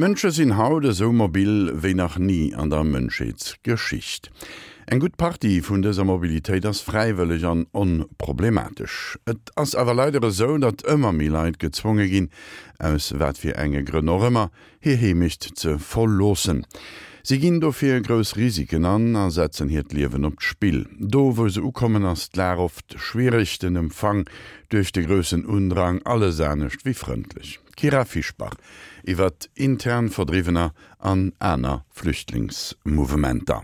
D'Mënsche sinn haut esou mobil wéi nach ni an der Mënschheetsgeschicht. Eng gutt Partie vun dëser Mobilitéit ass fräiwëlleg an onproblematesch. Et ass awer leider esou, datt ëmmer méi Leit gezwonge ginn, aus wat fir enge Grënn och ëmmer, hir Heemecht ze verloossen. Si ginn dofir grouss Risiken an a setzen hiert Liewen op d'Spill. Do wou se ukommen ass d'Lag oft schwiereg, den Empfang duerch de groussen Undrang alles anescht wéi frëndlech. D'Kyra Fischbach iwwert intern Verdriwwener an aner Flüchtlingsmouvementer.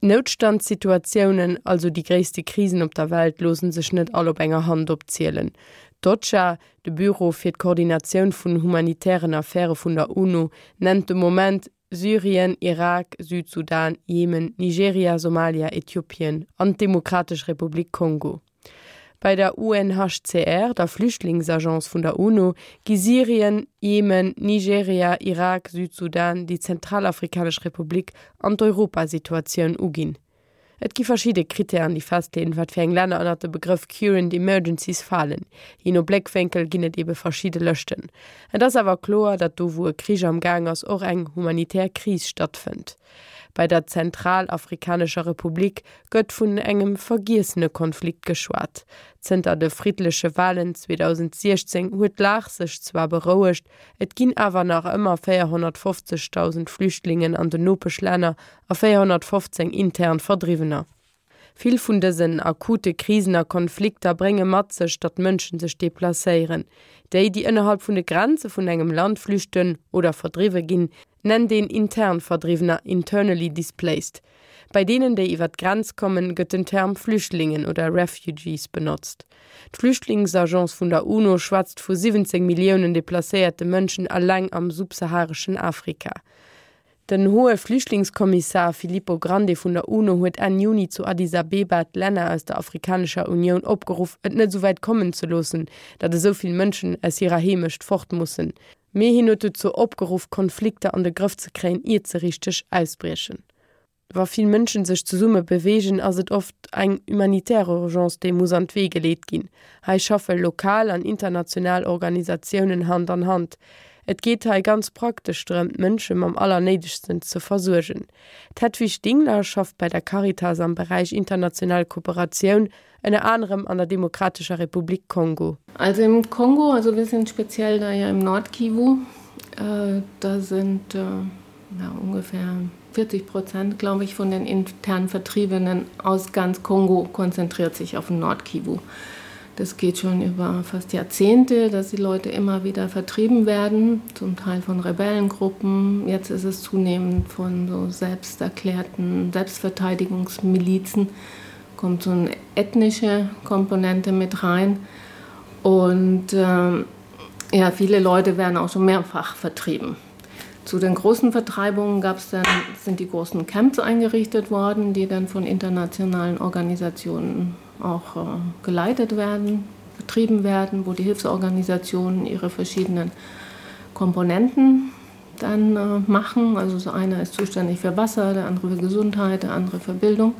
Noutstandssituatiounen, also déi gréisste Krisen op der Welt, loosse sech net all op enger Hand opzielen. D'OCHA, de Büro fir d'Koordinatioun vun humanitären Affäre vun der UNO, nennt de Moment Syrien, Irak, Südsudan, Jemen, Nigeria, Somalia, Äthiopien an d'Demokratesch Republik Kongo. Bei der UNHCR, der Flüchtlingsagence vun der UNO, gi Syrien, Jemen, Nigeria, Irak, Südsudan, déi Zentralafrikanesch Republik an d'Europasituatioun uginn. Et gi verschidde Krittären, déi festleeën, wat fir eng Länner ënnert de Begrëff Current Emergencies falen. Jee no Bléckwénkel ginn et ebe verschidde Lëschten. Et ass awer kloer, datt do wou e Krich am Gaang ass, och eng humanitär Kris stattfënnt. Bei der Zentralafrikanescher Republik gëtt vun engem vergiessene Konflikt geschwat. Zënter de friddleche Walen 2016 huet d'Lag sech zwar berouegt, et ginn awer nach ëmmer 450.000 Flüchtlingen an den Nopeschlänner a 415 intern Verdriwwener. Vill vun dësen akute Krisen a Konflikter brénge mat sech, datt Mënschen sech deplacéieren. Déi, déi ënnerhalb vun de Grenze vun engem Land flüchten oder verdriwwe ginn, nennt een intern Verdriwwener, internally displaced. Bei deenen, déi iwwer d'Grenz kommen, gëtt den Term Flüchtlingen oder Refugees benotzt. D'Flüchtlingsagence vun der UNO schwätzt vu 17 Milliounen deplacéierte Mënschen eleng am subsahareschen Afrika. Den hohe Flüchtlingskommissar Filippo Grandi vun der UNO huet Enn Juni zu Addis Abeba d'Länner aus der Afrikanescher Unioun opgeruff, et net esou wäit kommen ze loossen, datt esou vill Mënschen aus hirer Heemecht fort mussen. Mee hien huet dozou opgeruff, Konflikter an de Grëff ze kréien, iert se richteg ausbriechen. Wa vill Mënschen sech zesumme beweegen, ass et oft eng humanitär Urgence, déi muss an d'Wee geleet ginn. Hei schaffe lokal an international Organisatiounen Hand an Hand. Et geet hei ganz praktesch drëm, d'Mënsche mam Allernéidegsten ze versuergen. D'Hedwig Dingler schafft bei der Caritas am Beräich international Kooperatioun, ënner anerem an der Demokratescher Republik Kongo. Also im Kongo, also wir sind speziell da ja im Nordkivu, da sind ja, ungefähr 40 Prozent, glaube ich, von den intern Vertriebenen aus ganz Kongo konzentriert sich auf den Nordkivu. Das geht schon über fast Jahrzehnte, dass die Leute immer wieder vertrieben werden, zum Teil von Rebellengruppen. Jetzt ist es zunehmend von so selbsterklärten Selbstverteidigungsmilizen, kommt so eine ethnische Komponente mit rein. Und äh, ja, viele Leute werden auch schon mehrfach vertrieben. Zu den großen Vertreibungen gab's dann, sind die großen Camps eingerichtet worden, die dann von internationalen Organisationen auch äh, geleitet werden, betrieben werden, wo die Hilfsorganisationen ihre verschiedenen Komponenten dann äh, machen. Also so einer ist zuständig für Wasser, der andere für Gesundheit, der andere für Bildung.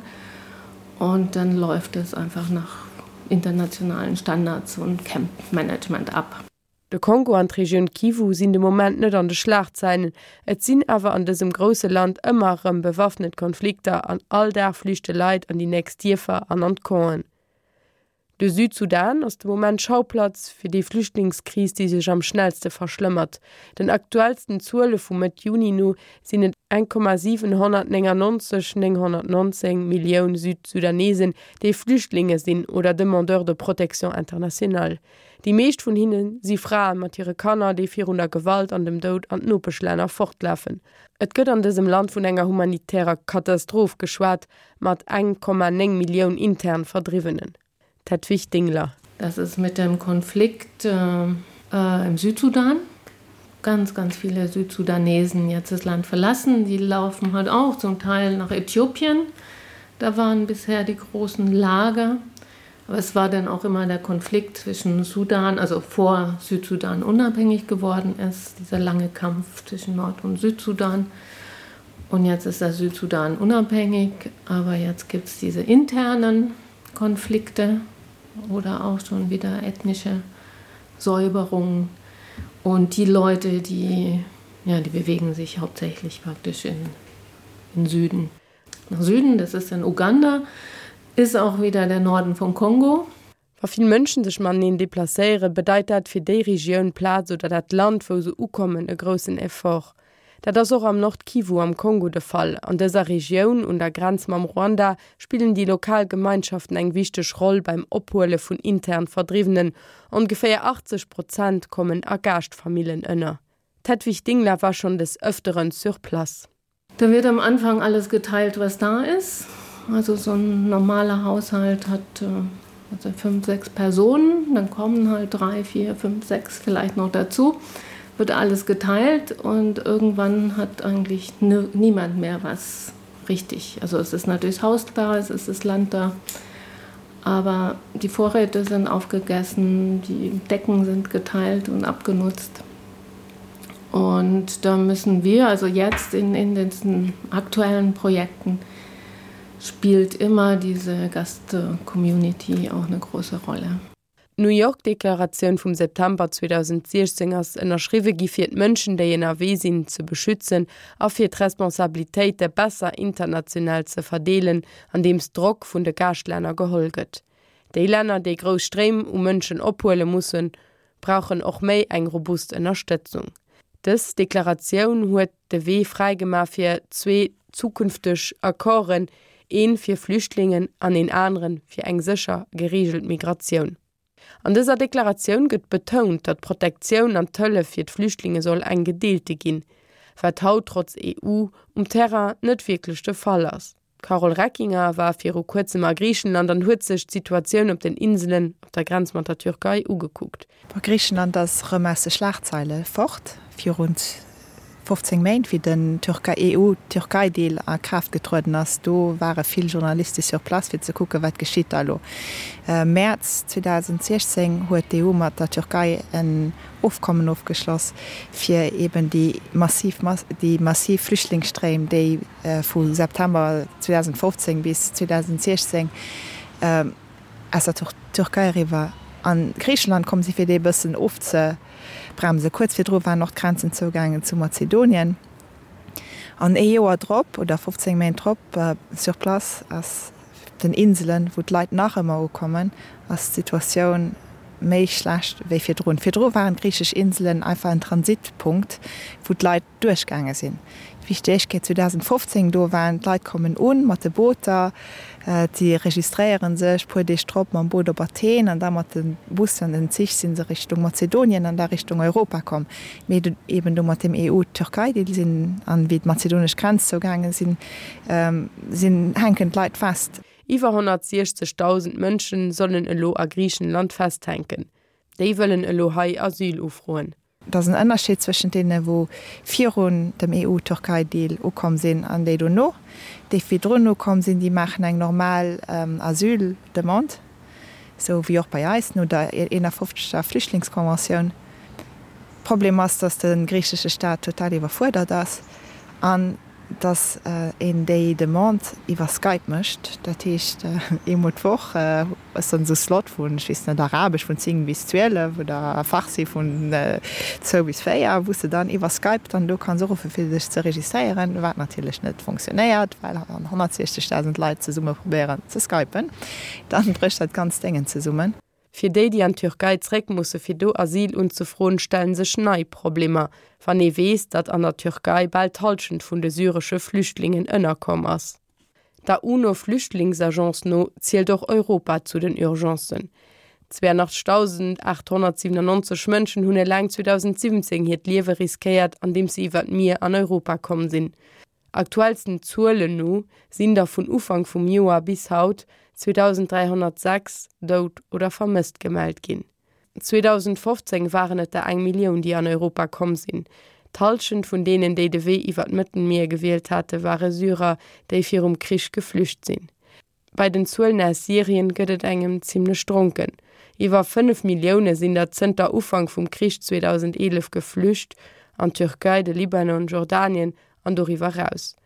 Und dann läuft es einfach nach internationalen Standards und Campmanagement ab. De Kongo an d'Regioun Kivu sinn de Moment net an de Schlagzeilen, et sinn awer an dësem grousse Land ëmmer erëm bewaffnet Konflikter an all Dag flüchte Leit an déi nächst Dierfer an an d'Campen. De Südsudan ass de Moment Schauplatz fir déi Flüchtlingskris, déi sech am schnellste verschlëmmert. Den aktuellsten Zuele vu Mëtt Juni no sinn et 1,799 919 Millioun Südsudanesen, déi Flüchtlinge sinn oder Demandeurs de protection internationale. Déi meescht vun hinne si Frae mat hire Kanner, déi virun der Gewalt an dem Doud an d'Nopeschlänner fortlafen. Et gëtt an dësem Land vun enger humanitärer Katastroph geschwat, mat 1,9 Millioun intern Verdriwwenen. D'Hedwig Dingler. Das ist mit dem Konflikt im Südsudan. Ganz, ganz viele Südsudanesen jetzt das Land verlassen. Die laufen halt auch zum Teil nach Äthiopien. Da waren bisher die großen Lager. Aber es war dann auch immer der Konflikt zwischen Sudan, also vor Südsudan unabhängig geworden ist, dieser lange Kampf zwischen Nord- und Südsudan. Und jetzt ist der Südsudan unabhängig, aber jetzt gibt es diese internen Konflikte oder auch schon wieder ethnische Säuberungen. Und die Leute, die. Ja, die bewegen sich hauptsächlich praktisch in, in Süden. Nach Süden, das ist in Uganda, ist auch wieder der Norden von Kongo. Wa vill Mënschen sech mateneen deplacéieren, bedeit dat fir déi Regioun, Plaz oder dat Land, wou se ukommen, e groussen Effort. Dat ass och am Nord-Kivu am Kongo de Fall. An dëser Regioun, un der Grenz mam Ruanda, spillen déi lokal Gemeinschaften eng wichteg Roll beim Ophuele vun intern Verdriwwenen. Ongeféier 80 Prozent kommen a Gaaschtfamillen ënner. D'Hedwig Dingler war schonn des Ëfteren sur place. Da wird am Anfang alles geteilt, was da ist. Also so ein normaler Haushalt hat äh, also fünf, sechs Personen, dann kommen halt drei, vier, fünf, sechs vielleicht noch dazu, wird alles geteilt und irgendwann hat eigentlich niemand mehr was richtig. Also es ist natürlich das Haus da, es ist das Land da, aber die Vorräte sind aufgegessen, die Decken sind geteilt und abgenutzt. Und da müssen wir also jetzt in, in den aktuellen Projekten spielt immer diese Gast-Community auch eine große Rolle. D'New York-Deklaratioun vum September 2016 ass ënnerschriwwe gi fir d'Mënschen, déi ënnerwee sinn, ze beschützen a fir d'Responsabilitéite besser international ze verdeelen, andeems Drock vun de Gaascht-Länner geholl gëtt. Déi Länner, déi grouss Stréim u Mënschen ophuele mussen, brauchen och méi eng robust Ënnerstëtzung. Dës Deklaratioun huet de Wee fräigemaach fir zwee zukünfteg Accorden, een fir Flüchtlingen an een anere fir eng sécher, gereegelt Migratioun. An dëser Deklaratioun gëtt betount, datt d'Protektioun an d'Hëllef fir d'Flüchtlinge soll eng gedeelte ginn, wat haut trotz EU um Terrain net wierklech de Fall ass. D'Carole Reckinger war viru kuerzem a Griichenland an huet sech d'Situatioun op den Inselen op der Grenz mat der Türkei ugekuckt. Griichenland ass erëm aus de Schlagzeile fort. Virun 15 Méint, wéi den EU-Türkei-Deal a Kraaft getrueden ass, do ware vill Journaliste sur place, fir ze kucken, wat geschitt da elo. Mäerz 2016 huet d'EU mat der Türkei en Ofkommen ofgeschloss, fir eben déi massiv déi massiv Flüchtlingsstréim, déi vu September 2015 bis 2016 aus der Türkei eriwwer a Griichenland komm sinn, fir déi e bëssen ofzebremsen. Kuerz virdru waren och d'Grenzen zougaangen zu Mazedonien. An ee Joer drop, oder 15 Méint drop, sur place ass den Inselen, wou d'Leit nach ëmmer ukommen, ass d'Situatioun méi schlecht wéi virdrun. Virdru waren d'griichesch Inselen einfach en Transitpunkt, wou d'Leit duerchgaange sinn. D'Wichtegkeet 2015 do waren, d'Leit kommen un mat de Booter, si registréiere sech, puer Deeg drop mam Boot op Athen an da mat de Bussen an den Zich si se Richtung Mazedonien an da Richtung Europa komm. Mee eben do mat dem EU-Türkei-Deal sinn an wéi d'mazedonesch Grenz zougaange sinn, sinn hänken d'Leit fest. Iwwer 160.000 Mënschen sollen elo a Griichenland festhänken. Déi wëllen elo hei Asyl ufroen. Et ass en Ënnerscheed zwëschent deene wou virun dem EU-Türkei-Deal ukomm sinn an déi dono. Déi virdrun ukomm sinn, déi maachen eng normal Asyl-Demande, esou wéi och bei eis no der 51. Flüchtlingskonventioun. Problem ass, datt de griichesche Staat total iwwerfuerdert ass an datt een déi Demande iwwer Skype mécht. Dat heescht, eemol d'Woch ass dann esou Slot vun, ech weess net, Arabesch vun 10 bis 12 oder Farsi vun 2 bis 4, wou s de dann iwwer Skype dann do kanns uruffen, fir dech ze registréieren, wat natierlech net funktionéiert, well wann 160.000 Leit zesumme probéieren ze skypen, dann brécht dat ganzt Déngen zesummen. Fir déi, déi an d'Türkei zréck musse fir do Asyl unzefroen, stellen sech nei Problemer, wann ee weess, datt an der Türkei bal d'Hallschent vun de syresche Flüchtlingen ënnerkomm ass. Der UNO-Flüchtlingsagence no zielt och Europa zu den Urgencen. 82.897 Mënschen hunn eleng 2017 hiert Liewe riskéiert, andeems se iwwer d'Mier an Europa komm sinn. Aktuellsten Zuelen no sinn der vun Ufank vum Joer bis haut 2.306 dout oder vermësst gemellt ginn. 2015 waren et der eng Millioun, déi an Europa komm sinn. D'Hallschent vun deenen, déi de Wee iwwer d'Mëttelmier gewielt hate ware Syrer, déi virum Krich geflücht sinn. Bei den Zuelen aus Syrien gëtt et engem zimmlech dronken. Iwwer 5 Millioune sinn der zënter Ufank vum Krich 2011 geflücht, an d'Türkei, de Libanon, Jordanien an doriwwer eraus.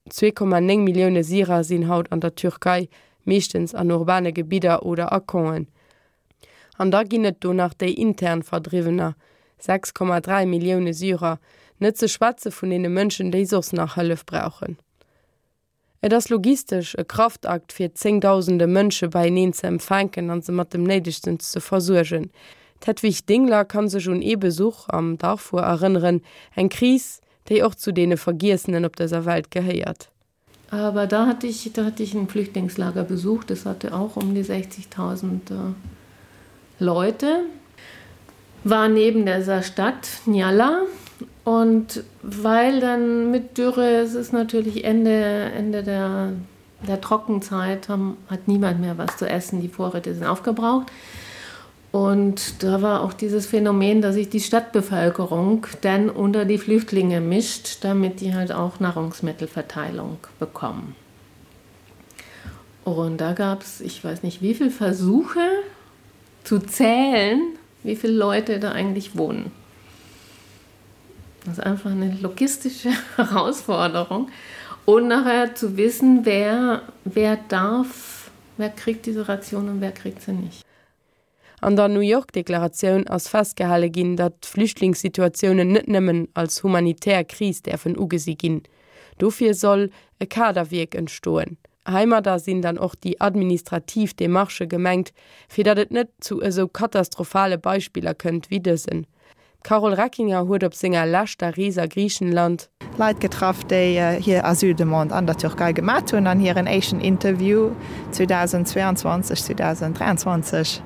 2,9 Millioune Syrer sinn haut an der Türkei, meeschtens an urbane Gebidder oder a Campen. An da ginn et do nach déi intern Verdriwwener, 6,3 Millioune Syrer. Net ze schwätze vun deene Mënschen, déi soss nach Hëllef brauchen. Et ass logistesch e Kraftakt fir zéngdausende Mënsche beieneen ze empfänken an se mat dem Néidegsten ze versuergen. D'Hedwig Dingler kann sech un ee Besuch am Darfur erënneren, eng Kris, déi och zu deene Vergiessenen op dëser Welt gehéiert. Aber da hatte ich, da hatte ich ein Flüchtlingslager besucht, das hatte auch um die 60.000 äh, Leute, war neben dieser Stadt Njala und weil dann mit Dürre es ist natürlich Ende, Ende der, der Trockenzeit haben, hat niemand mehr was zu essen, die Vorräte sind aufgebraucht. Und da war auch dieses Phänomen, dass sich die Stadtbevölkerung dann unter die Flüchtlinge mischt, damit die halt auch Nahrungsmittelverteilung bekommen. Und da gab es, ich weiß nicht wie viele Versuche zu zählen, wie viele Leute da eigentlich wohnen. Das ist einfach eine logistische Herausforderung. Und nachher zu wissen, wer, wer darf, wer kriegt diese Ration und wer kriegt sie nicht. An der New York-Deklaratioun ass festgehale ginn, datt Flüchtlingssituatiounen net nëmmen als humanitär Kris däerfen ugesi ginn. Dofir soll e Kaderwierk entstoen. Heimadder sinn dann och déi administrativ Demarchë gemengt, fir datt et net zu esou katastrophale Beispiller kënnt wéi dësen. D'Carole Reckinger huet op senger leschter Rees a Griichenland. Leit getraff, déi hir Asyldemande an der Türkei gemat hunn an hiren éischten Interview 2022, 2023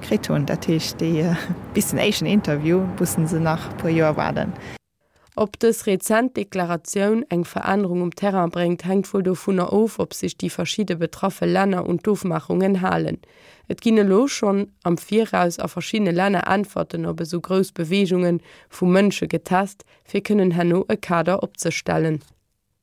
kritt hunn. Dat heescht, déi bis den éischten Interview mussen se nach e puer Joer waarden. Ob dës rezent Deklaratioun eng Verännerung um Terrain bréngt, hänkt wuel dovunner of, ob sech déi verschidde betraffe Länner un d'Ofmaachungen halen. Et ginn elo schonn am Viraus a verschiddene Länner Äntwerten op esou grouss Beweegunge vu Mënsche getest, fir kënnen herno e Kader opzestellen.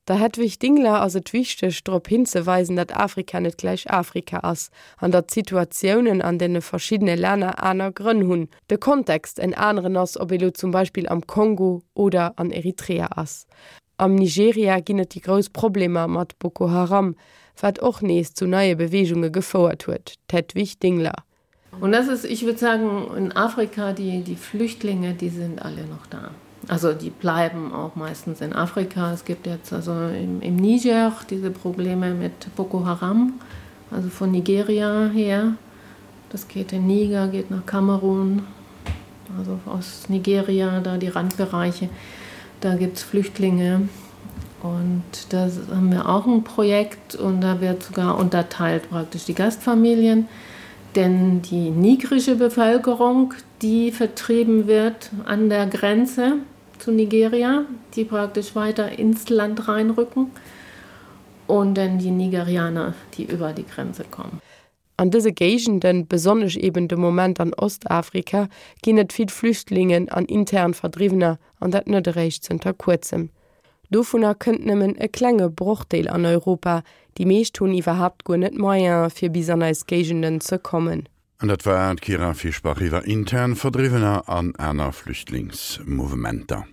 Der Hedwig Dingler ass et wichteg, drop hinzeweisen, datt Afrika net gläich Afrika ass an datt d'Situatiounen an deene verschiddene Länner aner Grënn hunn, de Kontext en aneren ass, ob ee lo zum Beispill am Kongo oder an Eritrea ass. Am Nigeria ginn et déi grouss Problemer mat Boko Haram, wat och nees zu neie Beweegunge gefouert huet. D'Hedwig Dingler. Und das ist, ich würde sagen, in Afrika, die, die Flüchtlinge, die sind alle noch da. Also die bleiben auch meistens in Afrika. Es gibt jetzt also im, im Niger diese Probleme mit Boko Haram, also von Nigeria her. Das geht in Niger, geht nach Kamerun, also aus Nigeria, da die Randbereiche. Da gibt es Flüchtlinge. Und da haben wir auch ein Projekt und da wird sogar unterteilt praktisch die Gastfamilien. Denn die nigrische Bevölkerung, die vertrieben wird an der Grenze zu Nigeria, die praktisch weiter ins Land reinrücken und dann die Nigerianer, die über die Grenze kommen. An dëse Géigenden, besonnesch eben de Moment an Ostafrika, ginn et vill Flüchtlingen an intern Verdriwwener, an dat net eréischt zënter kuerzem. Dovunner kënnt nëmmen e klenge Brochdeel an Europa, déi meescht hunn iwwerhaapt guer net d'Moyene fir bis an eis Géigenden ze kommen. An dat war d'Kyra Fischbach iwwer intern Verdriwwener an aner Flüchtlingsmouvementer.